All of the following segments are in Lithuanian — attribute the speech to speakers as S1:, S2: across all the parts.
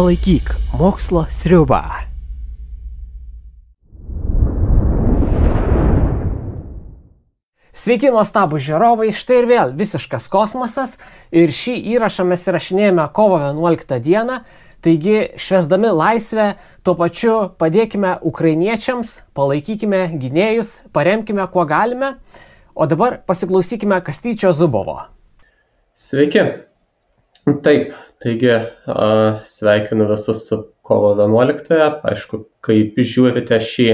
S1: Palaikyk mokslo sriubą. Sveiki, nuostabūs žiūrovai, štai ir vėl visiškas kosmosas ir šį įrašą mes įrašinėjame kovo 11 dieną, taigi švęsdami laisvę, tuo pačiu padėkime ukrainiečiams, palaikykime gynėjus, paremkime kuo galime, o dabar pasiklausykime Kastyčio Zubovo.
S2: Sveiki. Taip, taigi sveikinu visus su kovo 11. Aišku, kaip žiūrite šį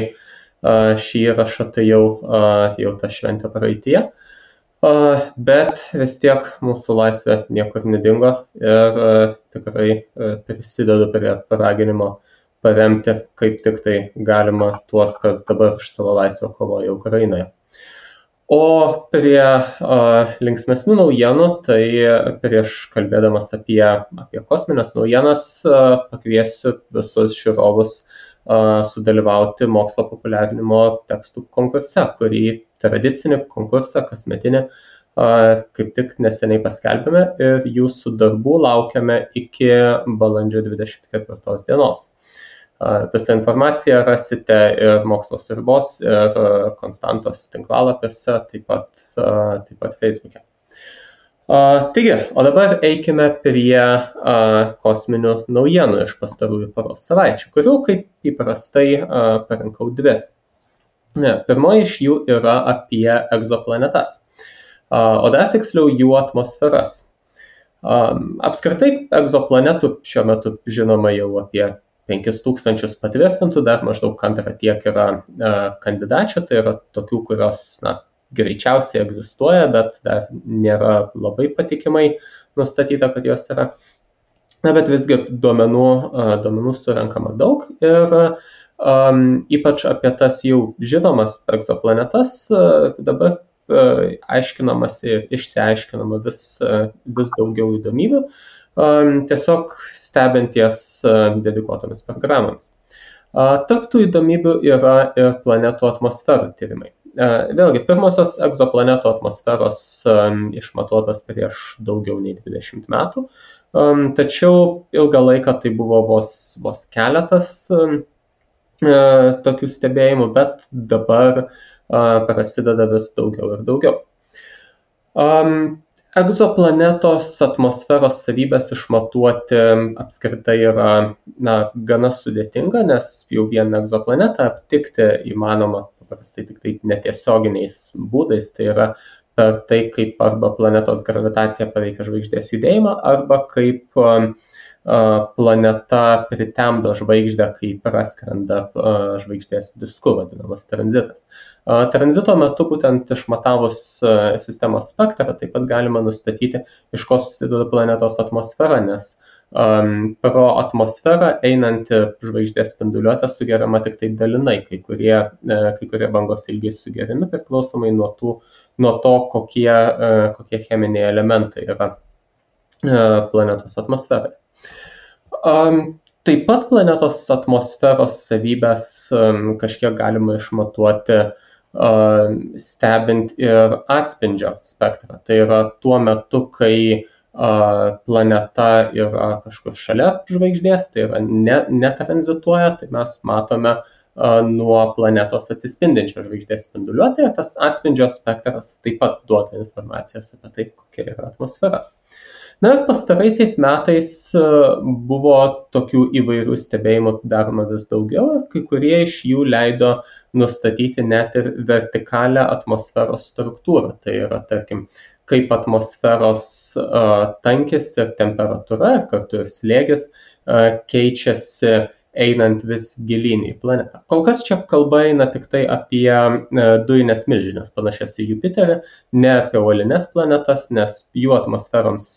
S2: įrašą, tai jau ta šventė praeityje, bet vis tiek mūsų laisvė niekur nedingo ir tikrai prisidedu prie paraginimo paremti kaip tik tai galima tuos, kas dabar už savo laisvę kovoja Ukrainoje. O prie linksmesnių naujienų, tai prieš kalbėdamas apie kosminės naujienas pakviesiu visus žiūrovus sudalyvauti mokslo populiarinimo tekstų konkurse, kurį tradicinį konkursą kasmetinį kaip tik neseniai paskelbėme ir jūsų darbų laukiame iki balandžio 24 dienos. Visą informaciją rasite ir Mokslo sriubos, ir Konstantos tinklalapiuose, taip pat Facebook'e. Taigi, o dabar eikime prie kosminių naujienų iš pastarųjų paros savaičių, kurių kaip įprastai parinkau dvi. Pirmoji iš jų yra apie egzoplanetas, o dar tiksliau jų atmosferas. Apskritai egzoplanetų šiuo metu žinoma jau apie 5000 patvirtintų, dar maždaug antrą tiek yra kandidačių, tai yra tokių, kurios greičiausiai egzistuoja, bet dar nėra labai patikimai nustatyta, kad jos yra. Bet visgi duomenų surenkama daug ir ypač apie tas jau žinomas egzoplanetas dabar aiškinamasi ir išsiaiškinama vis daugiau įdomybių, tiesiog stebinties dedikuotomis programomis. Tarp tų įdomybių yra ir planetų atmosferų tyrimai. Vėlgi, pirmosios egzoplanetų atmosferos išmatuotos prieš daugiau nei 20 metų, tačiau ilgą laiką tai buvo vos keletas tokių stebėjimų, bet dabar prasideda vis daugiau ir daugiau. Egzoplanetos atmosferos savybės išmatuoti apskritai yra gana sudėtinga, nes jau vieną egzoplanetą aptikti įmanoma paprastai tik taip netiesioginiais būdais, tai yra per tai, kaip arba planetos gravitacija paveikia žvaigždės judėjimą, arba kaip planeta pritemdo žvaigždę, kai praskrenda žvaigždės disku, vadinamas tranzitas. Tranzito metu būtent išmatavus sistemos spektrą taip pat galima nustatyti, iš ko susideda planetos atmosfera, nes pro atmosferą einanti žvaigždės spinduliuotė sugeriama tik tai dalinai, kai kurie bangos ilgiai sugeriami priklausomai nuo to, kokie cheminiai elementai yra planetos atmosferai. Taip pat planetos atmosferos savybės kažkiek galima išmatuoti stebint ir atspindžio spektrą. Tai yra tuo metu, kai planeta yra kažkur šalia žvaigždės, tai yra netranzituoja, tai mes matome nuo planetos atsispindinčią žvaigždės spinduliuotę. Tas atspindžio spektras taip pat duoda informacijos apie tai, kokia yra atmosfera. Na ir pastaraisiais metais buvo tokių įvairių stebėjimų daroma vis daugiau ir kai kurie iš jų leido nustatyti net ir vertikalią atmosferos struktūrą. Tai yra, tarkim, kaip atmosferos tankis ir temperatūra ir kartu ir slėgis keičiasi einant vis gilyn į planetą. Kol kas čia kalba eina tik tai apie dujines milžines, panašias į Jupiterį, ne apie uolines planetas, nes jų atmosferoms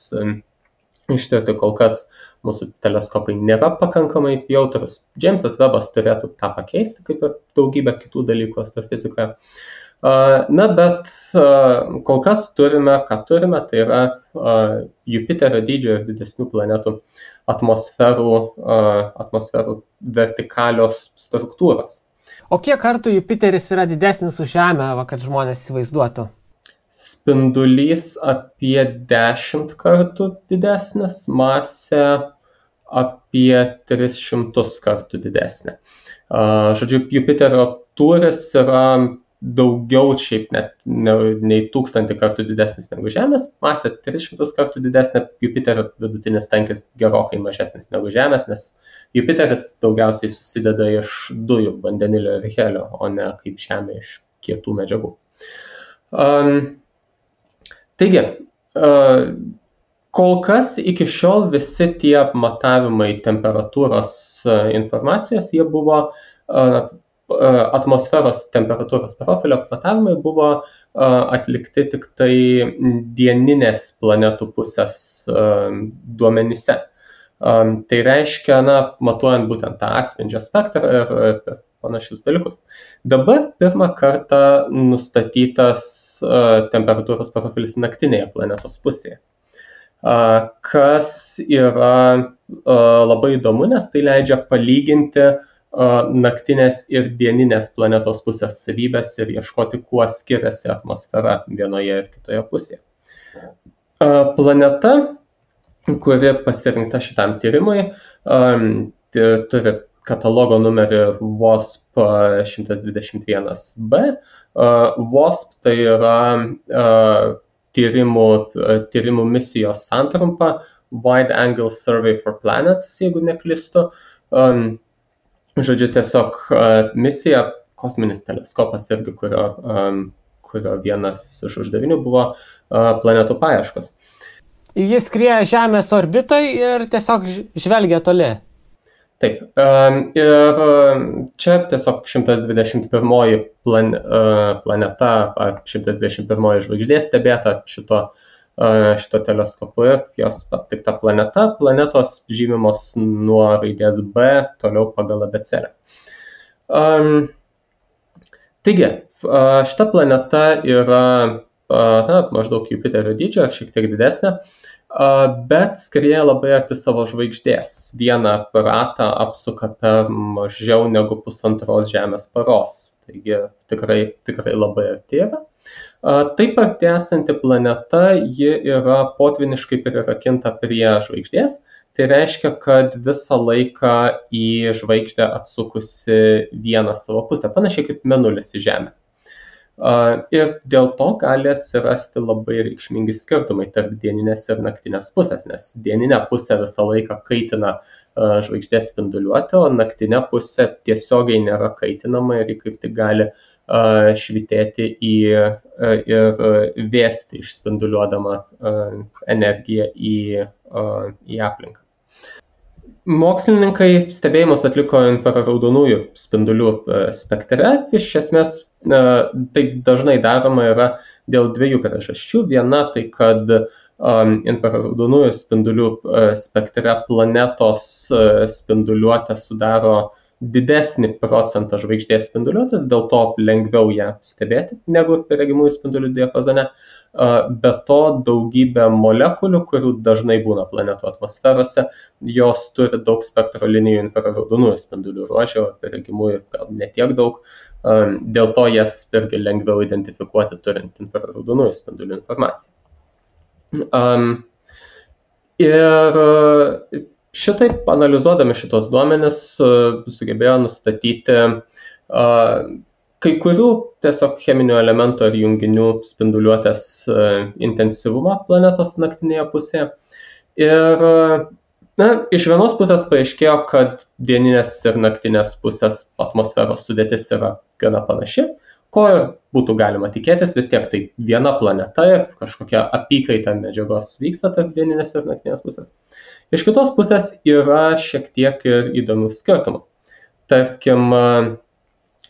S2: ištirti kol kas mūsų teleskopai nėra pakankamai jautrus. Džeimsas Vebas turėtų tą pakeisti, kaip ir daugybę kitų dalykų astrofizikoje. Bet kol kas turime, tai yra Jupiterio dydžio ir didesnių planetų atmosferų vertikalios struktūros.
S1: O kiek kartų Jupiteris yra didesnis už Žemę, kad žmonės įsivaizduotų?
S2: Spindulys apie 10 kartų didesnis, masė apie 300 kartų didesnė. Žodžiu, Jupiterio tūris yra daugiau šiaip net nei 1000 kartų didesnis negu Žemės, masė 300 kartų didesnė, Jupiterio vidutinis tankis gerokai mažesnis negu Žemės, nes Jupiteris daugiausiai susideda iš dujų, vandenilio ir helio, o ne kaip Žemė iš kietų medžiagų. Taigi, kol kas iki šiol visi tie matavimai temperatūros informacijos, jie buvo atmosferos temperatūros profilio matavimai buvo atlikti tik tai dieninės planetų pusės duomenyse. Tai reiškia, matuojant būtent tą atspindžio spektrą ir panašius dalykus. Dabar pirmą kartą nustatytas temperatūros profilis naktinėje planetos pusėje, kas yra labai įdomu, nes tai leidžia palyginti naktinės ir dieninės planetos pusės savybės ir ieškoti, kuo skiriasi atmosfera vienoje ir kitoje pusėje. Planeta, kuri pasirinkta šitam tyrimui, turi katalogo numerį WASP 121b. WASP tai yra tyrimų misijos santrumpa, Wide Angle Survey for Planets, jeigu neklystu. Žodžiu, tiesiog misija, kosminis teleskopas irgi, kurio vienas iš uždavinių buvo planetų paieškos.
S1: Jis skrieja Žemės orbitoj ir tiesiog žvelgia toli.
S2: Taip, ir čia tiesiog 121 planeta, 121 žvaigždė stebėta šito teleskopu ir jos aptikta planeta. Planetos žymimos nuo raidės B toliau pagal abėcėlę. Taigi, šita planeta yra maždaug Jupiterio dydžio, šiek tiek didesnė, bet skrieja labai arti savo žvaigždės. Vieną ratą apsuka per mažiau negu 1,5 Žemės paros. Taigi tikrai labai arti yra. Taip arti esanti planeta, ji yra potviniškai prirakinta prie žvaigždės. Tai reiškia, kad visą laiką į žvaigždę atsukusi vieną savo pusę, panašiai kaip mėnulis į Žemę. Ir dėl to gali atsirasti labai reikšmingi skirtumai tarp dieninės ir naktinės pusės, nes dieninė pusė visą laiką kaitina žvaigždės spinduliuotę, o naktinė pusė tiesiogiai nėra kaitinama ir ji kaip tik gali švitėti ir vėsti išspinduliuodama energiją į aplinką. Mokslininkai stebėjimus atliko infraraudonųjų spindulių spektre. Iš esmės taip dažnai daroma yra dėl dviejų priežasčių. Viena tai, kad infraraudonųjų spindulių spektre planetos spinduliuotė sudaro didesnį procentą žvaigždės spinduliuotės, dėl to lengviau ją stebėti negu regimųjų spindulių diapazone. Be to daugybė molekulių, kurių dažnai būna planetų atmosferose, jos turi daug spektro linijų infraraudonųjų spindulių ruože, o regimųjų gal netiek daug. Dėl to jas irgi lengviau identifikuoti turint infraraudonųjų spindulių informaciją. Ir šitaip analizuodami šitos duomenis sugebėjo nustatyti kai kurių tiesiog cheminių elementų ar junginių spinduliuotės intensyvumą planetos naktinėje pusėje. Ir iš vienos pusės paaiškėjo, kad dieninės ir naktinės pusės atmosferos sudėtis yra gana panaši, ko ir būtų galima tikėtis, vis tiek tai viena planeta ir kažkokia apykaita medžiagos vyksta tarp dieninės ir naktinės pusės. Iš kitos pusės yra šiek tiek ir įdomių skirtumų. Tarkim,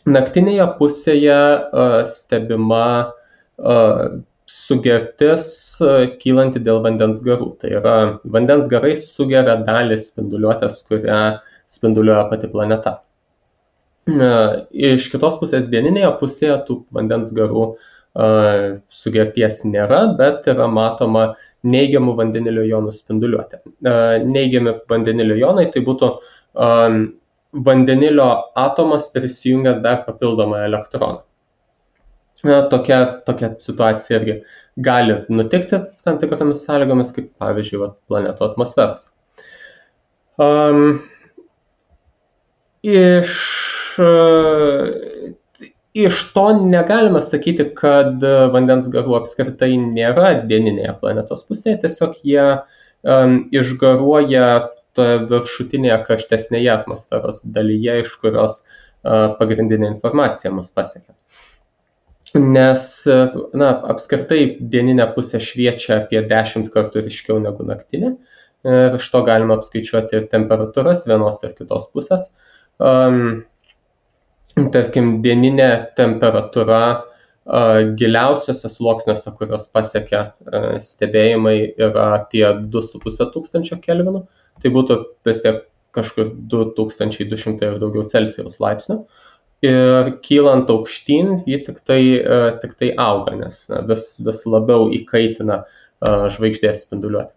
S2: naktinėje pusėje stebima sugertis kylanti dėl vandens garų. Tai yra, vandens garai sugeria dalį spinduliuotės, kurią spinduliuoja pati planeta. Iš kitos pusės dieninėje pusėje tų vandens garų sugerties nėra, bet yra matoma neigiamų vandenilio jonų spinduliuotė. Neigiami vandenilio jonai tai būtų vandenilio atomas prisijungęs dar papildomą elektroną. Tokia situacija irgi gali nutikti tam tikromis sąlygomis, kaip pavyzdžiui planetų atmosferos. Um, Iš to negalima sakyti, kad vandens garų apskritai nėra dieninėje planetos pusėje, tiesiog jie išgaruoja toje viršutinėje karštesnėje atmosferos dalyje, iš kurios pagrindinė informacija mus pasiekia. Nes apskritai dieninė pusė šviečia apie 10 kartų ryškiau negu naktinė. Ir iš to galima apskaičiuoti ir temperatūras vienos ir kitos pusės. Tarkim, dieninė temperatūra giliausiose sluoksniuose, kurios pasiekia stebėjimai, yra apie 2500 kelvinų. Tai būtų vis tiek kažkur 2200 ir daugiau Celsijaus laipsnių. Ir kylant aukštyn, ji tik tai auga, nes vis labiau įkaitina žvaigždės spinduliuotę.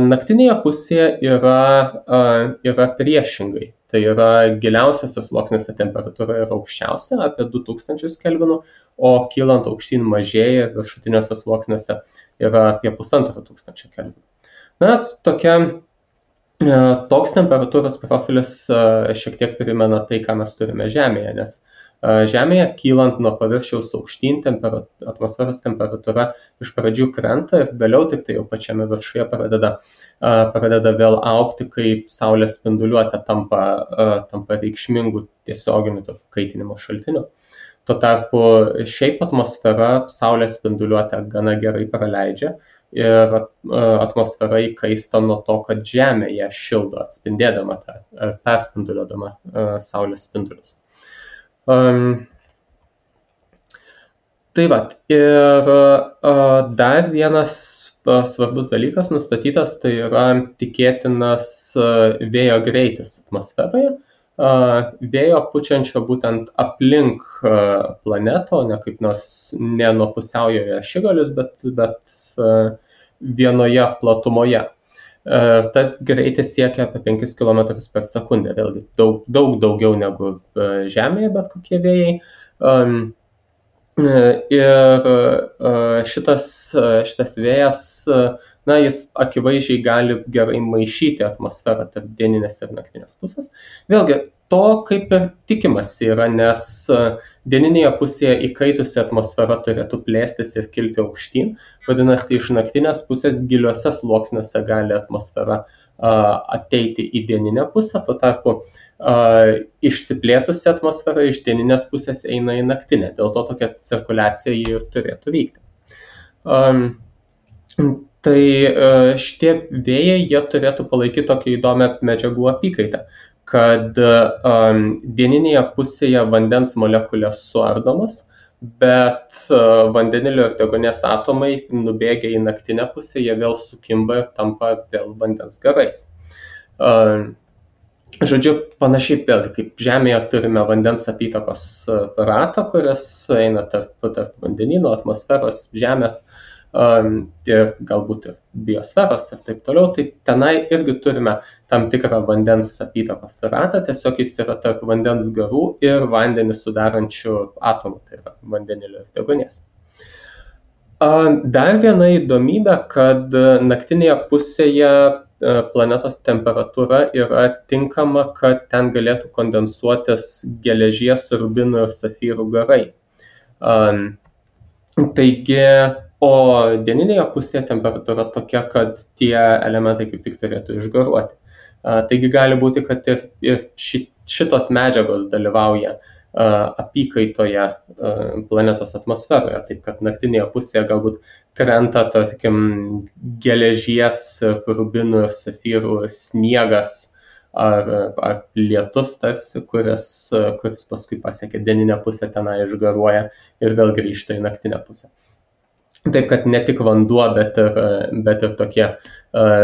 S2: Naktinėje pusėje yra priešingai. Tai yra giliausiose sluoksniuose temperatūra yra aukščiausia, apie 2000 kelvinų, o kylant aukštyn mažėja ir viršutiniuose sluoksniuose yra apie 1500 kelvinų. Toks temperatūros profilis šiek tiek primena tai, ką mes turime Žemėje, nes Žemėje kylant nuo paviršiaus aukštyn atmosferos temperatūra iš pradžių krenta ir vėliau tik tai jau pačiame viršuje pradeda vėl augti, kai Saulės spinduliuotė tampa reikšmingų tiesioginių kaitinimo šaltinių. Tuo tarpu šiaip atmosfera Saulės spinduliuotę gana gerai praleidžia ir atmosfera įkaista nuo to, kad Žemė ją šildo, atspindėdama perspinduliuodama Saulės spindulius. Tai ir dar vienas svarbus dalykas nustatytas, tai yra tikėtinas vėjo greitis atmosferoje. Vėjo pučiančio būtent aplink planetą, ne kaip nors ne nuo pusiaujoje ašigalius, bet vienoje platumoje. Tas greitis siekia apie 5 km per sekundę, vėlgi daug daugiau negu Žemėje bet kokie vėjai. Ir šitas vėjas, jis akivaizdžiai gali gerai maišyti atmosferą tarp dieninės ir naktinės pusės. Vėlgi, to kaip ir tikimasi yra, nes dieninėje pusėje įkaitusi atmosfera turėtų plėstis ir kilti aukštyn, vadinasi, iš naktinės pusės giliuose sluoksniuose gali atmosfera ateiti į dieninę pusę, tuo tarpu išsiplėtusi atmosfera iš dieninės pusės eina į naktinę, dėl to tokia cirkuliacija ir turėtų vykti. Tai šitie vėjai, jie turėtų palaikyti tokią įdomią medžiagų apykaitą, kad dieninėje pusėje vandens molekulės suardomos, bet vandenilio ir deguonies atomai nubėgę į naktinę pusę, jie vėl sukimba ir tampa vėl vandens garais. Žodžiu, panašiai vėlgi, kaip Žemėje turime vandens apytakos ratą, kuris eina tarp vandenyno, atmosferos, Žemės ir galbūt ir biosferos ir taip toliau, tai tenai irgi turime tam tikrą vandens apytakos ratą, tiesiog jis yra tarp vandens garų ir vandenį sudarančių atomų, tai yra vandenilio ir deguonies. Dar viena įdomybė, kad naktinėje pusėje planetos temperatūra yra tinkama, kad ten galėtų kondensuotis geležies, rubinų ir safyrų garai. Taigi, o dieninėje pusėje temperatūra tokia, kad tie elementai kaip tik turėtų išgaruoti. Taigi gali būti, kad ir šitos medžiagos dalyvauja apykaitoje planetos atmosferoje, taip kad naktinėje pusėje galbūt krenta, tarkim, geležies, rubinų ir safyrų sniegas ar lietus tarsi, kuris paskui pasiekia dieninę pusę, tenai išgaruoja ir vėl grįžta į naktinę pusę. Taip kad ne tik vanduo, bet ir tokie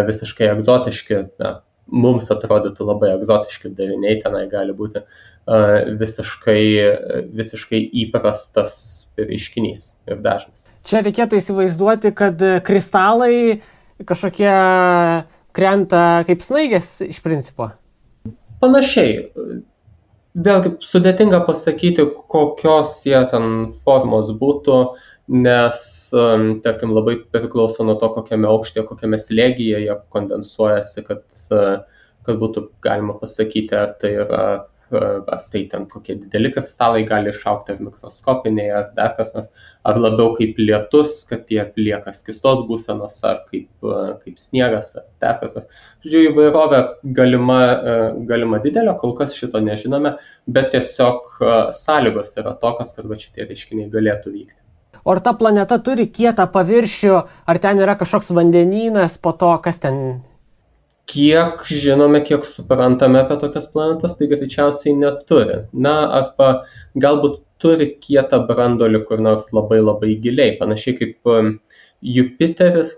S2: visiškai egzotiški, mums atrodytų labai egzotiški dariniai, tenai gali būti visiškai įprastas reiškinys ir dažnas.
S1: Čia reikėtų įsivaizduoti, kad kristalai kažkokie krenta kaip snaigės iš principo.
S2: Panašiai. Vėlgi sudėtinga pasakyti, kokios jie ten formos būtų, nes, tarkim, labai priklauso nuo to, kokiame aukštyje, kokiame slėgyje jie kondensuojasi, kad būtų galima pasakyti, ar tai ten kokie dideli kristalai gali išaugti, ar mikroskopiniai, ar dar kas nors, ar labiau kaip lietus, kad jie lieka skystos būsenos, ar kaip sniegas, ar dar kas nors. Žodžiu, įvairovė galima didelė, kol kas šito nežinome, bet tiesiog sąlygos yra tokios, kad šitie reiškiniai galėtų vykti.
S1: O ar ta planeta turi kietą paviršių, ar ten yra kažkoks vandenynas po to, kas ten?
S2: Kiek žinome, kiek suprantame apie tokias planetas, tai greičiausiai neturi. Arba galbūt turi kietą branduolį kur nors labai labai giliai. Panašiai kaip Jupiteris,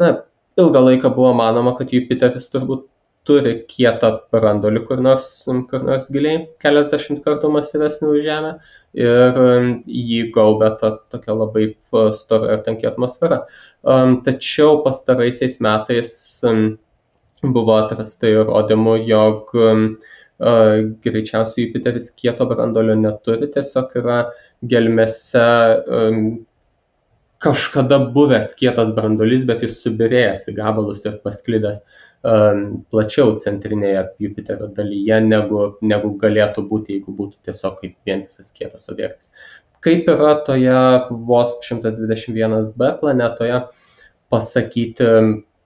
S2: ilgą laiką buvo manoma, kad Jupiteris turbūt turi kietą branduolį kur nors giliai, keliasdešimt kartų masyvesnį už Žemę, ir jį gaubia tokia labai stora ir tanki atmosfera. Tačiau pastaraisiais metais buvo atrasta įrodymų, jog greičiausiai Jupiteris kieto branduolio neturi, tiesiog yra gelmėse kažkada buvęs kietas branduolys, bet jis subyrėjęs į gabalus ir pasklidęs plačiau centrinėje Jupiterio dalyje, negu galėtų būti, jeigu būtų tiesiog kaip vientisas kietas objektas. Kaip yra toje vos 121b planetoje, pasakyti,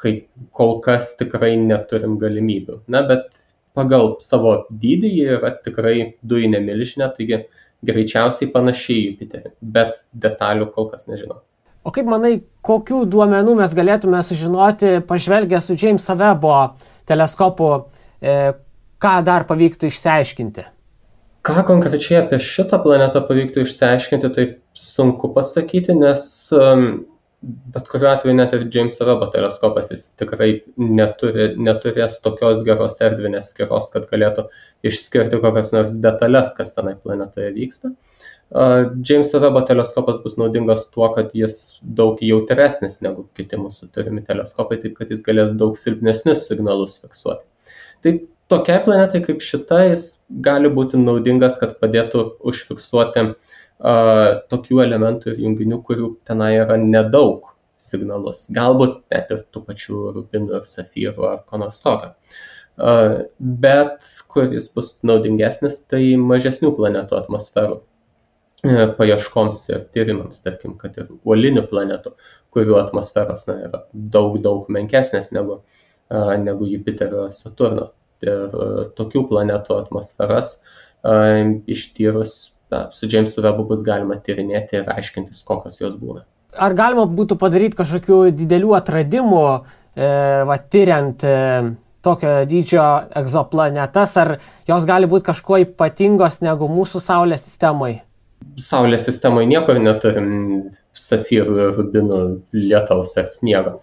S2: kaip kol kas tikrai neturim galimybių. Bet pagal savo dydį jie yra tikrai dujinė milžinė, taigi greičiausiai panašiai į Jupiterį, bet detalių kol kas nežinau.
S1: O kaip manai, kokių duomenų mes galėtume sužinoti, pažvelgę su James Webbo teleskopu, ką dar pavyktų išsiaiškinti?
S2: Ką konkrečiai apie šitą planetą pavyktų išsiaiškinti, tai sunku pasakyti, nes bet kuriuo atveju net ir James Webbo teleskopas jis tikrai neturės tokios geros erdvinės skyros, kad galėtų išskirti kokias nors detalės, kas tenai planetoje vyksta. James Webbo teleskopas bus naudingas tuo, kad jis daug jautresnis negu kiti mūsų turimi teleskopai, taip kad jis galės daug silpnesnius signalus fiksuoti. Tai tokiai planetai kaip šita jis gali būti naudingas, kad padėtų užfiksuoti tokių elementų ir junginių, kurių tenai yra nedaug signalus. Galbūt net ir tų pačių rubinų ir safyrų ar ko nors tokio. Bet kuris bus naudingesnis, tai mažesnių planetų atmosferų paieškoms ir tyrimams, tarkim, kad ir uolinių planetų, kurių atmosferos yra daug menkesnės negu Jupiterio ir Saturno. Ir tokių planetų atmosferas ištyrus su James Webbu bus galima tyrinėti ir aiškintis, kokios jos būna.
S1: Ar galima būtų padaryti kažkokių didelių atradimų, tyriant tokio dydžio egzoplanetas, ar jos gali būti kažkuo ypatingos negu mūsų Saulės sistemoje?
S2: Saulės sistemoje niekur neturim safyrų ir rubinų, lietaus ar sniego.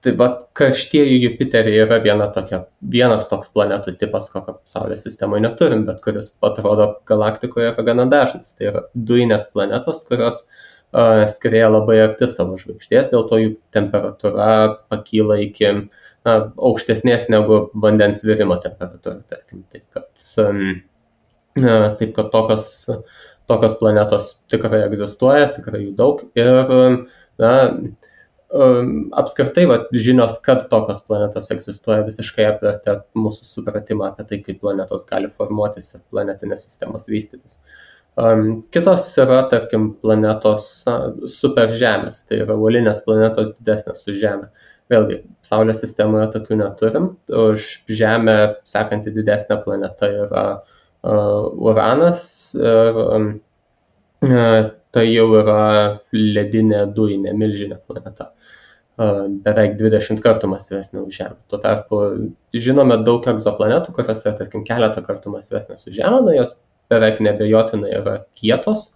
S2: Taip pat karštieji Jupiteriai yra vienas toks planetų tipas, kokio Saulės sistemoje neturim, bet kuris atrodo galaktikoje yra gana dažnas. Tai yra dujinės planetos, kurios skrieja labai arti savo žvaigždės, dėl to jų temperatūra pakyla iki aukštesnės negu vandens virimo temperatūra, tarkim. Taip kad tokios planetos tikrai egzistuoja, tikrai jų daug ir apskritai žinios, kad tokios planetos egzistuoja, visiškai apvertė mūsų supratimą apie tai, kaip planetos gali formuotis ir planetinės sistemos vystytis. Kitos yra, tarkim, planetos superžemės, tai yra uolinės planetos didesnės už Žemę. Vėlgi, Saulės sistemoje tokių neturim, už Žemę sekanti didesnė planeta yra Uranas ir tai jau yra ledinė dujinė milžinė planeta, beveik 20 kartų masyvesnė už Žemę. Tuo tarpu žinome daug egzoplanetų, kurios yra, tarkim, keletą kartų masyvesnės už Žemę, jos beveik nebejotinai yra kietos,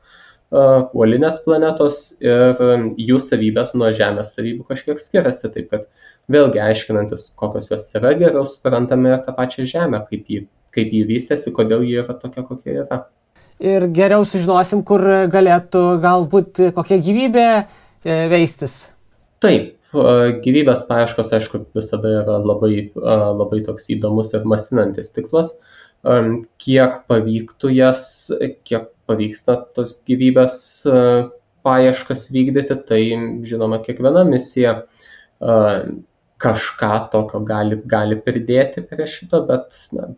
S2: uolinės planetos ir jų savybės nuo Žemės savybių kažkiek skiriasi, taip kad vėlgi aiškinantis, kokios jos yra, geriau suprantame ir tą pačią Žemę, kaip jį vystėsi, kodėl jį yra tokia, kokia yra.
S1: Ir geriau sužinosim, kur galėtų galbūt kokia gyvybė veistis.
S2: Taip, gyvybės paieškos, aišku, visada yra labai toks įdomus ir masinantis tikslas. Kiek pavyksta tos gyvybės paieškas vykdyti, tai žinoma, kiekviena misija kažką tokio gali pridėti prie šito, bet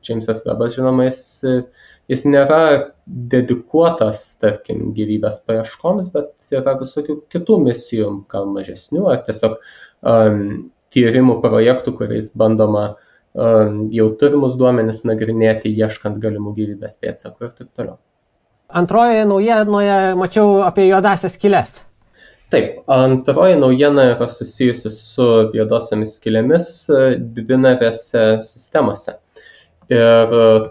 S2: Jamesas Webbas, žinoma, jis nėra dedikuotas, tarkim, gyvybės paieškoms, bet yra visokių kitų misijų, gal mažesnių, ar tiesiog tyrimų projektų, kuriais bandoma jau turimus duomenis nagrinėti, ieškant galimų gyvybės pėdsakų ir taip toliau.
S1: Antrojoje naujienoje mačiau apie juodasias skyles.
S2: Taip, antroji naujiena yra susijusi su juodosiomis skylėmis dvinarėse sistemose ir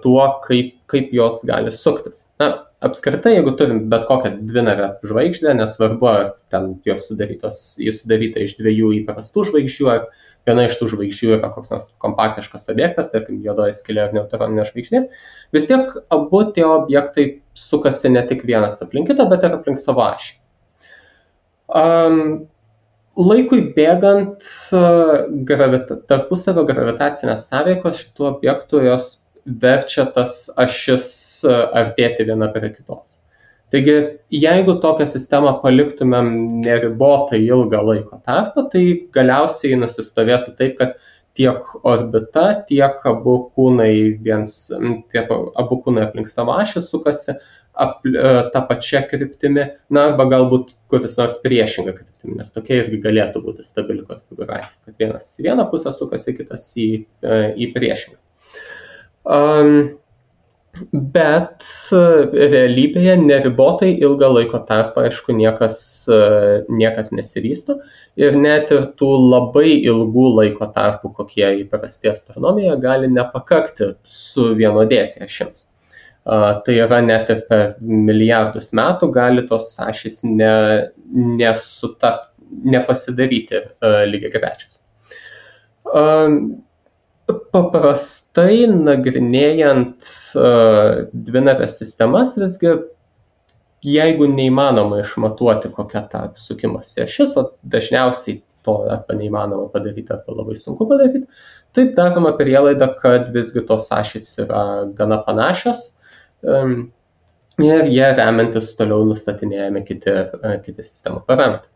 S2: tuo, kaip jos gali suktis. Apskritai, jeigu turim bet kokią dvinarę žvaigždę, nesvarbu, ar ten jos sudaryta iš dviejų įprastų žvaigždžių, ar viena iš tų žvaigždžių yra koks nors kompaktiškas objektas, tarkim, juodoji skylė ar neutroninė žvaigždė, vis tiek abu tie objektai sukasi ne tik vienas aplink kitą, bet ir aplink savo ašį. Laikui bėgant tarpusavio gravitacinės sąveikos šitų objektų jos verčia tas ašis artėti viena prie kitos. Taigi, jeigu tokią sistemą paliktumėm neribotai ilgą laiko tarpą, tai galiausiai nusistovėtų taip, kad tiek orbita, tiek abu kūnai aplink savo ašį sukasi tą pačią kryptimį, arba galbūt kuris nors priešingą kryptimį, nes tokia irgi galėtų būti stabili konfiguracija, kad vienas į vieną pusę sukasi, kitas į priešingą. Bet realybėje neribotai ilgą laiko tarpą, aišku, niekas nesivysto ir net ir tų labai ilgų laiko tarpų, kokie įprasti astronomijoje, gali nepakakti suvienodėti ašims. Tai yra net ir per milijardus metų gali tos ašys nepasidaryti lygiagrečios. Paprastai nagrinėjant dvinarės sistemas, visgi jeigu neįmanoma išmatuoti, kokia ta sukimosi ašis, o dažniausiai to arba neįmanoma padaryti, arba labai sunku padaryti, taip daroma prielaida, kad visgi tos ašys yra gana panašios ir jie remiantis toliau nustatinėjami kiti sistemų parametrai.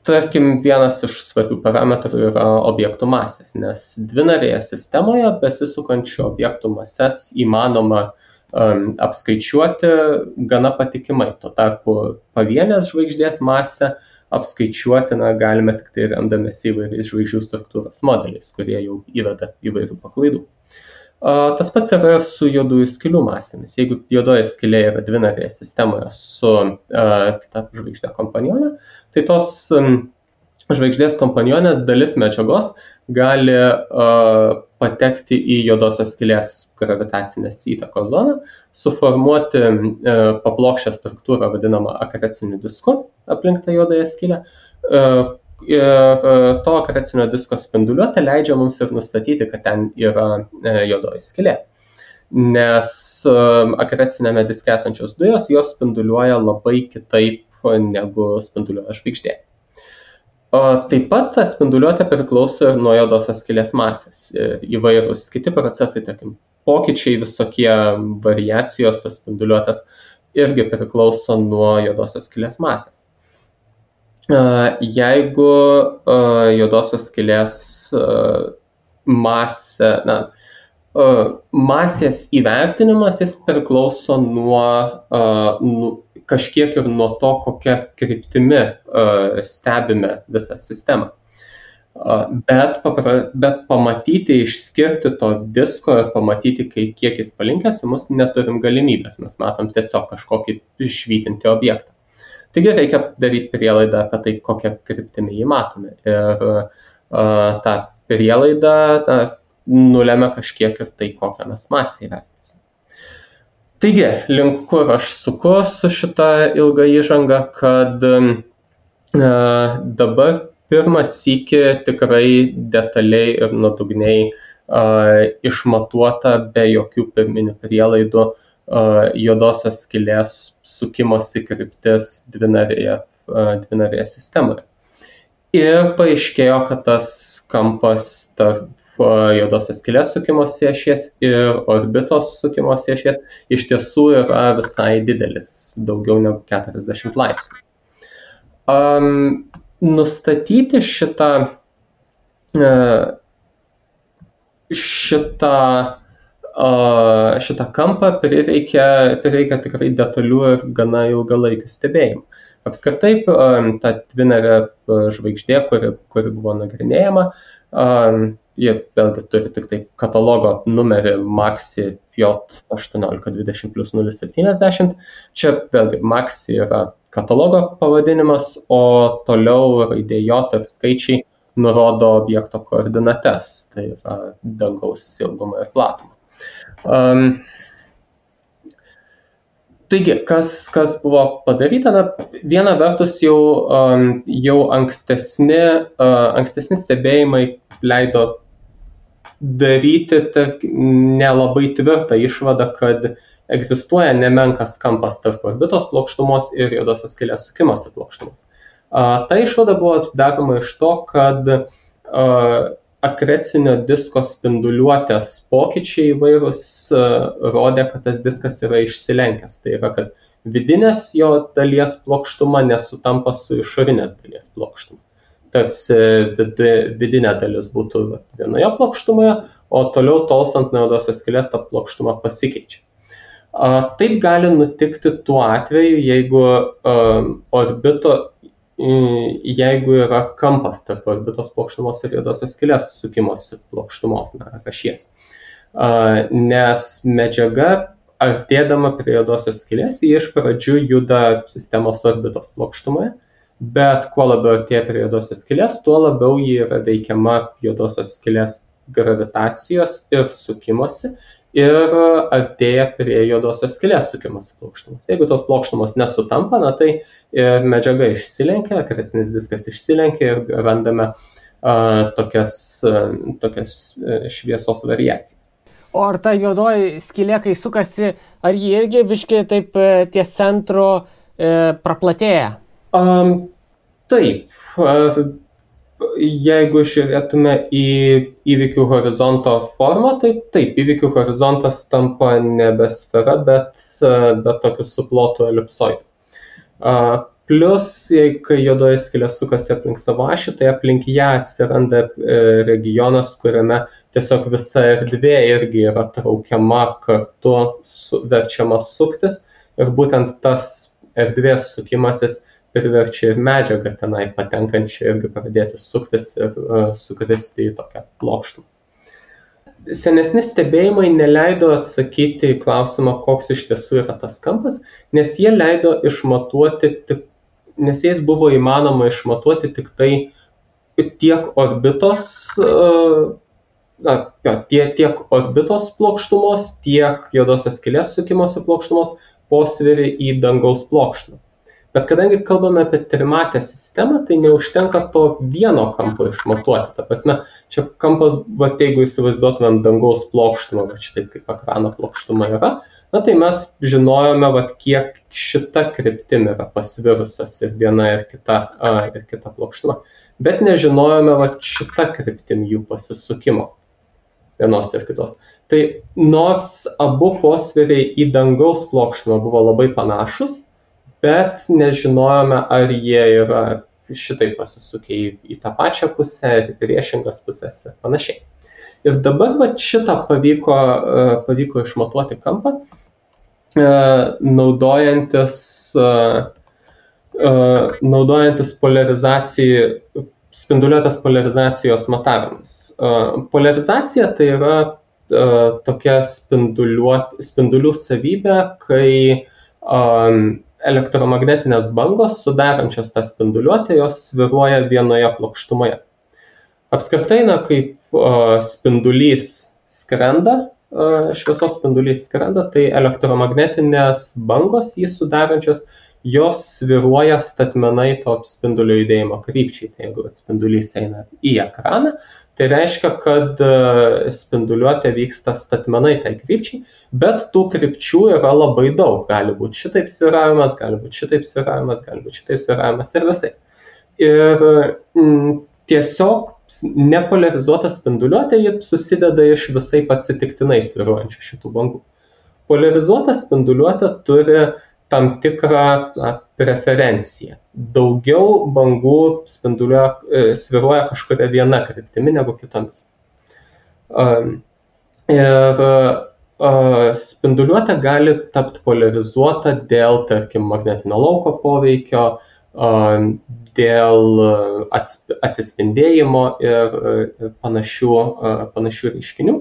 S2: Tarkim, vienas iš svarbių parametrų yra objektų masės, nes dvinarėje sistemoje besisukančių objektų mases įmanoma apskaičiuoti gana patikimai. Tuo tarpu pavienės žvaigždės masę apskaičiuoti galime tik tai remdamiesi įvairiais žvaigždžių struktūros modeliais, kurie jau įveda įvairių paklaidų. Tas pats yra su juodųjų skylių masėmis. Jeigu juodoji skylė yra dvinarėje sistemoje su kita žvaigždė kompanionė, tai tos žvaigždės kompanionės dalis medžiagos gali patekti į juodosios skylės gravitacinės įtakos zoną, suformuoti paplokščią struktūrą vadinamą akreciniu disku aplink tą juodąją skylę. Ir to akrecinio disko spinduliuotė leidžia mums ir nustatyti, kad ten yra juodoji skylė. Nes akrecinėme diske esančios dujos, jos spinduliuoja labai kitaip negu spinduliuoja žvaigždė. Taip pat ta spinduliuotė priklauso ir nuo juodosios skylės masės. Įvairūs kiti procesai, tarkim, pokyčiai, visokie variacijos tos spinduliuotės irgi priklauso nuo juodosios skylės masės. Jeigu juodosios skylės masės įvertinimas, jis priklauso kažkiek ir nuo to, kokia kryptimi stebime visą sistemą. Bet pamatyti, išskirti to disko ir pamatyti, kiek jis palinkęs, mus neturim galimybės, mes matom tiesiog kažkokį švytintį objektą. Taigi reikia daryti prielaidą apie tai, kokią kryptimį jį matome. Ir tą prielaidą nulemia kažkiek ir tai, kokią mes masę įvertinsime. Taigi, link kur aš suku su šita ilga įžanga, kad dabar pirmą sykį tikrai detaliai ir nuodugniai išmatuota be jokių pirminių prielaidų juodosios skylės sukimosi kryptis dvinarėje sistemoje. Ir paaiškėjo, kad tas kampas tarp juodosios skylės sukimosi ašies ir orbitos sukimosi ašies iš tiesų yra visai didelis, daugiau negu 40 laipsnių. Nustatyti šitą šitą kampą prireikia tikrai detalių ir gana ilgalaikių stebėjimų. Apskritai, ta Twinerio žvaigždė, kuri buvo nagrinėjama, jie vėlgi turi tik tai katalogo numerį Maxi J1820+070. Čia vėlgi Maxi yra katalogo pavadinimas, o toliau raidė J ir skaičiai nurodo objekto koordinates, tai yra dangaus ilgumą ir platumą. Taigi, kas buvo padaryta? Viena vertus jau ankstesni stebėjimai leido daryti nelabai tvirtą išvadą, kad egzistuoja nemenkas kampas tarp orbitos plokštumos ir juodosios skylės sukimosi plokštumos. Ta išvada buvo daroma iš to, kad akrecinio disko spinduliuotės pokyčiai įvairūs rodė, kad tas diskas yra išsilenkęs. Tai yra, kad vidinės jo dalies plokštuma nesutampa su išorinės dalies plokštuma. Tarsi vidinė dalis būtų vienoje plokštumoje, o toliau tolstant nuo juodosios skylės ta plokštuma pasikeičia. Taip gali nutikti tuo atveju, jeigu yra kampas tarp orbitos plokštumos ir juodosios skylės sukimosi plokštumos, ašies. Nes medžiaga, artėdama prie juodosios skylės, ji iš pradžių juda sistemos orbitos plokštumoje, bet kuo labiau artėja prie juodosios skylės, tuo labiau ji yra veikiama juodosios skylės gravitacijos ir sukimosi ir artėja prie juodosios skylės sukimosi plokštumos. Jeigu tos plokštumos nesutampa, tai ir medžiaga išsilenkia, akrecinis diskas išsilenkia ir randame tokias šviesos variacijas.
S1: O ar ta juodoji skylė, kai sukasi, ar ji irgi biškai taip ties centru praplatėja?
S2: Taip. Jeigu žiūrėtume į įvykių horizonto formą, tai taip, įvykių horizontas tampa nebe sfera, bet tokiu suplotu elipsoidu. Plus, kai juodoji skylė sukasi aplink savo ašį, tai aplink ją atsiranda regionas, kuriame tiesiog visa erdvė irgi yra traukiama kartu, verčiama suktis, ir būtent tas erdvės sukimasis priverčia ir medžiagą tenai patenkančią irgi pradėti suktis ir sukristi į tokią plokštumą. Senesni stebėjimai neleido atsakyti į klausimą, koks iš tiesų yra tas kampas, nes jais buvo įmanoma išmatuoti tik tai tiek orbitos plokštumos, tiek juodosios skylės sukimosi plokštumos posvyrį į dangaus plokštumą. Bet kadangi kalbame apie trimatę sistemą, tai neužtenka to vieno kampo išmatuoti. Ta prasme, čia kampas, jeigu įsivaizduotumėm dangaus plokštumą, šitaip kaip ekrano plokštuma yra, tai mes žinojome, kiek šita kryptim yra pasvirusios ir viena ir kita plokštuma. Bet nežinojome šita kryptim jų pasisukimo vienos ir kitos. Tai nors abu posviriai į dangaus plokštumą buvo labai panašus, bet nežinojome, ar jie yra šitai pasisukę į tą pačią pusę, ir priešingas pusės ir panašiai. Ir dabar šitą pavyko išmatuoti kampą, naudojantis spinduliuotės polarizacijos matavimas. Polarizacija tai yra tokia spindulių savybė, kai elektromagnetinės bangos, sudarančios tą spinduliuotę, jos svyruoja vienoje plokštumoje. Apskritai, kaip spindulys skrenda, šviesos spindulys skrenda, tai elektromagnetinės bangos jį sudarančios, jos svyruoja statmenai to spindulio judėjimo krypčiai. Tai jeigu spindulys eina į ekraną, tai reiškia, kad spinduliuotė vyksta statmenai tai krypčiai, bet tų krypčių yra labai daug. Gali būti šitaip svyravimas, gali būti šitaip svyravimas, gali būti šitaip svyravimas ir visai. Ir tiesiog nepolarizuota spinduliuotė susideda iš visai atsitiktinai svyruojančių šitų bangų. Polarizuota spinduliuotė turi tam tikrą preferencija. Daugiau bangų sviruoja kažkuria viena kryptimi negu kitomis. Ir spinduliuotė gali tapti polarizuota dėl, tarkim, magnetinio lauko poveikio, dėl atsispindėjimo ir panašių reiškinių.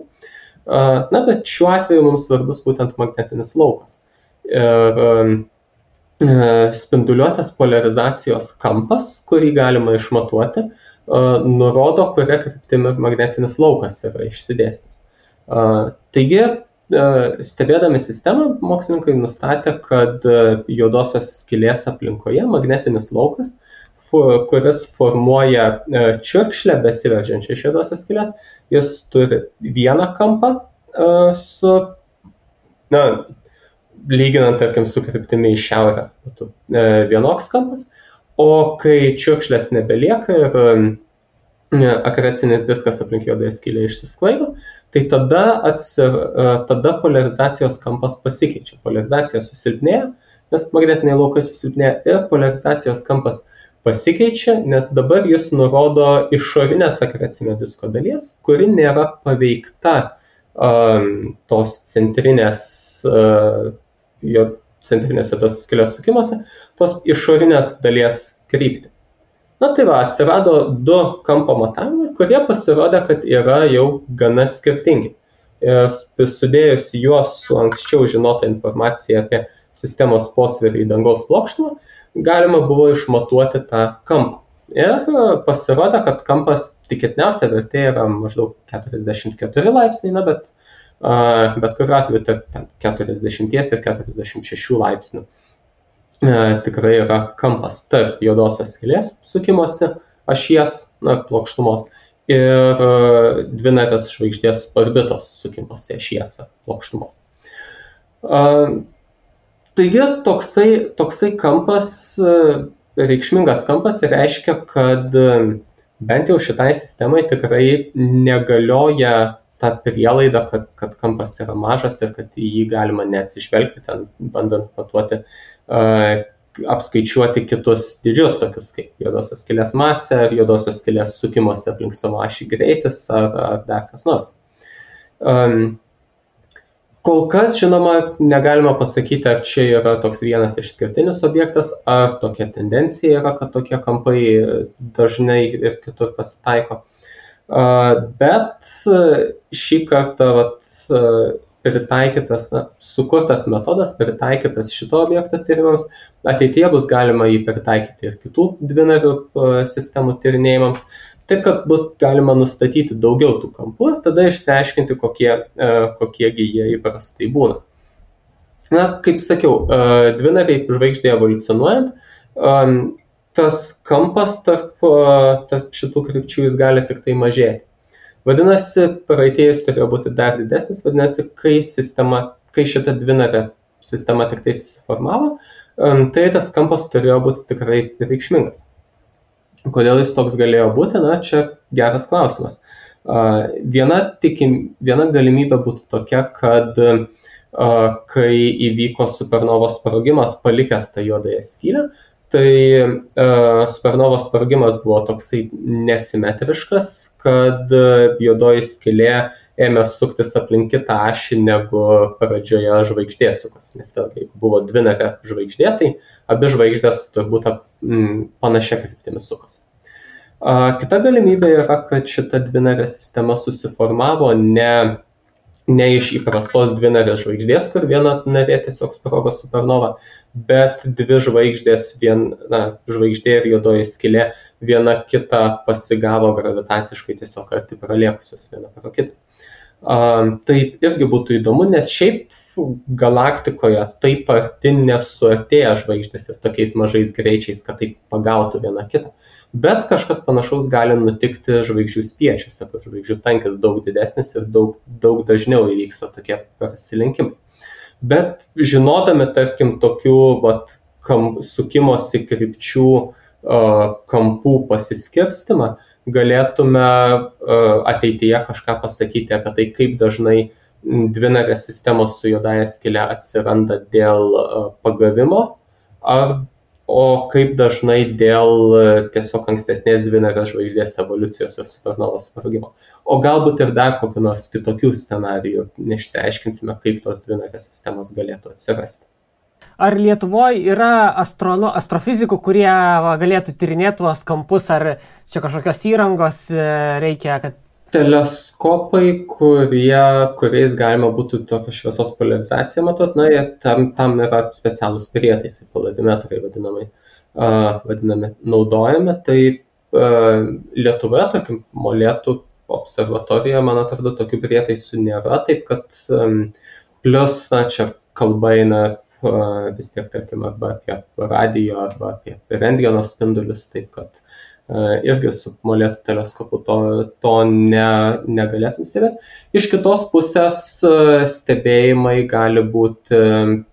S2: Na, bet šiuo atveju mums svarbus būtent magnetinis laukas. Ir spinduliuotės polarizacijos kampas, kurį galima išmatuoti, nurodo, kuria kryptimi magnetinis laukas yra išsidėstęs. Taigi, stebėdami sistemą, mokslininkai nustatė, kad juodosios skylės aplinkoje magnetinis laukas, kuris formuoja čiurkšlę besiveržiančią iš juodosios skylės, jis turi vieną kampą lyginant, tarkim, su kryptimi į šiaurę, vienoks kampas, o kai čiurkšlės nebelieka ir akreциnis diskas aplink juodąją skylę išsisklaido, tai tada polarizacijos kampas pasikeičia. Polarizacija susilpnėja, nes magnetiniai laukai susilpnėja, ir polarizacijos kampas pasikeičia, nes dabar jis nurodo išorinės akrecinio disko dalies, kuri nėra paveikta tos centrinės juodosios skylės sukimuose, tos išorinės dalies kryptį. Na tai va, atsirado du kampo matavimai, kurie pasirodė, kad yra jau gana skirtingi. Ir sudėjus juos su anksčiau žinota informacija apie sistemos posvyrį į dangaus plokštumą, galima buvo išmatuoti tą kampą. Ir pasirodė, kad kampas tikėtiniausia vertė yra maždaug 44 laipsniai, bet kuriuo atveju tarp 40 ir 46 laipsnių tikrai yra kampas tarp juodosios skylės sukimosi ašies, plokštumos, ir dvinarės žvaigždės orbitos sukimosi ašies plokštumos. Taigi toksai kampas, reikšmingas kampas, reiškia, kad bent jau šitai sistemai tikrai negalioja ta prielaida, kad kampas yra mažas ir kad į jį galima neatsižvelgti, ten bandant matuoti, apskaičiuoti kitus dydžius, tokius kaip juodosios skylės masė, ar juodosios skylės sukimosi aplink savo ašį greitis, ar dar kas nors. Kol kas, žinoma, negalima pasakyti, ar čia yra toks vienas išskirtinis objektas, ar tokia tendencija yra, kad tokie kampai dažnai ir kitur pasitaiko. Bet šį kartą sukurtas metodas, pritaikytas šito objekto tyrimams, ateityje bus galima jį pritaikyti ir kitų dvinarių sistemų tyrinėjimams, taip kad bus galima nustatyti daugiau tų kampų ir tada išsiaiškinti, kokiegi jie įprastai būna. Na, kaip sakiau, dvinariai žvaigždėje evoliucionuojant, tas kampas tarp šitų krypčių jis gali tik tai mažėti. Vadinasi, praeityje jis turėjo būti dar didesnis, vadinasi, kai šita dvinarė sistema tik tai susiformavo, tai tas kampas turėjo būti tikrai reikšmingas. Kodėl jis toks galėjo būti? Na, čia geras klausimas. Viena galimybė būtų tokia, kad kai įvyko supernovos sprogimas palikęs tą juodąją skylę, tai supernovos sprogimas buvo toksai nesimetriškas, kad juodoji skylė ėmė suktis aplink kitą ašį negu pradžioje žvaigždė sukas. Nes vėlgi, jeigu buvo dvinarė žvaigždė, tai abi žvaigždės turbūt panašia kryptimi sukas. Kita galimybė yra, kad šita dvinarė sistema susiformavo ne iš įprastos dvinarės žvaigždės, kur viena narė tiesiog sprogo supernova, bet dvi žvaigždės, žvaigždė ir juodoji skylė, viena kitą pasigavo gravitaciškai tiesiog arti praliekusios viena pro kitą. Tai irgi būtų įdomu, nes šiaip galaktikoje taip arti nesuartėja žvaigždės ir tokiais mažais greičiais, kad taip pagautų viena kitą. Bet kažkas panašaus gali nutikti žvaigždžių spiečiuose, kur žvaigždžių tankis daug didesnis ir daug dažniau įvyksta tokie prasilenkimai. Bet žinodami, tarkim, tokių sukimosi krypčių kampų pasiskirstimą, galėtume ateityje kažką pasakyti apie tai, kaip dažnai dvinarės sistemos su juodąja skyle atsiranda dėl pagavimo, o kaip dažnai dėl tiesiog ankstesnės dvinarės žvaigždės evoliucijos ir supernovos sprogimo. O galbūt ir dar kokių nors kitokių scenarijų, neišsiaiškinsime, kaip tos dvinarės sistemos galėtų atsirasti.
S1: Ar Lietuvoje yra astrofizikų, kurie galėtų tyrinėti tuos kampus, ar čia kažkokios įrangos reikia, kad...
S2: Teleskopai, kuriais galima būtų tokią šviesos polarizaciją matuoti, tam yra specialūs prietaisai, polarimetrai vadinami naudojami. Tai Lietuvoje, tarkim, Molėtų observatorijoje, man atrodo, tokių prietaisų nėra, taip kad plus, čia kalba eina vis tiek, tarkim, arba apie radijo, arba apie rentgeno spindulius, taip kad irgi su Molėtų teleskopu to negalėtum stebėti. Iš kitos pusės stebėjimai gali būti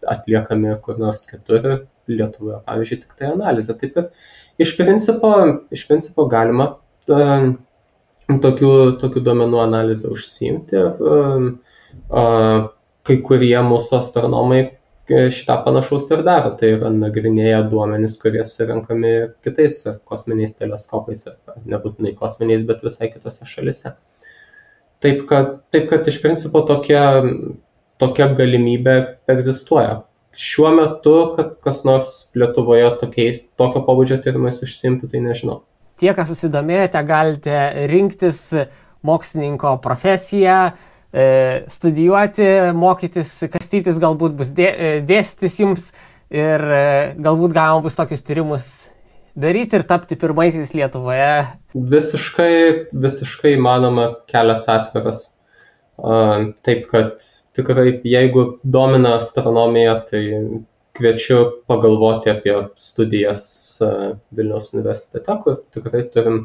S2: atliekami kur nors kitur, Lietuvoje, pavyzdžiui, tik tai analizė. Taip kad iš principo galima tokių duomenų analizę užsiimti ir kai kurie mūsų astronomai šitą panašaus ir daro, tai yra nagrinėja duomenis, kurie surenkami kitais kosminiais teleskopais, nebūtinai kosminiais, bet visai kitose šalise. Taip kad iš principo tokia galimybė egzistuoja. Šiuo metu, kad kas nors Lietuvoje tokio pobūdžio tyrimais užsiimti, tai nežinau.
S1: Tie, kas susidomėjote, galite rinktis mokslininko profesiją, studijuoti, mokytis, kastytis galbūt bus dėstytis jums ir galbūt galima bus tokius tyrimus daryti ir tapti pirmaisiais Lietuvoje.
S2: Visiškai įmanoma, kelias atviras. Taip kad tikrai, jeigu domina astronomija, tai kviečiu pagalvoti apie studijas Vilniaus universitete, kur tikrai turim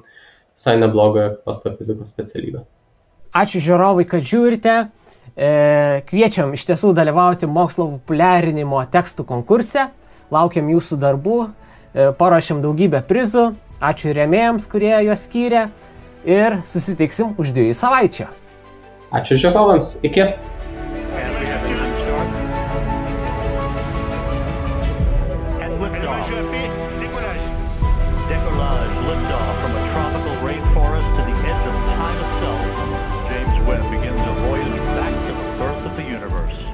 S2: visai neblogą astrofizikos specialybę.
S1: Ačiū žiūrovai, kad žiūrite. Kviečiam iš tiesų dalyvauti mokslo populiarinimo tekstų konkurse. Laukiam jūsų darbų. Paruošėm daugybę prizų. Ačiū rėmėjams, kurie juos skyrė. Ir susitiksim už 2 savaičių.
S2: Ačiū žiūrovams. Iki.
S3: James Webb begins a voyage back to the birth of the universe.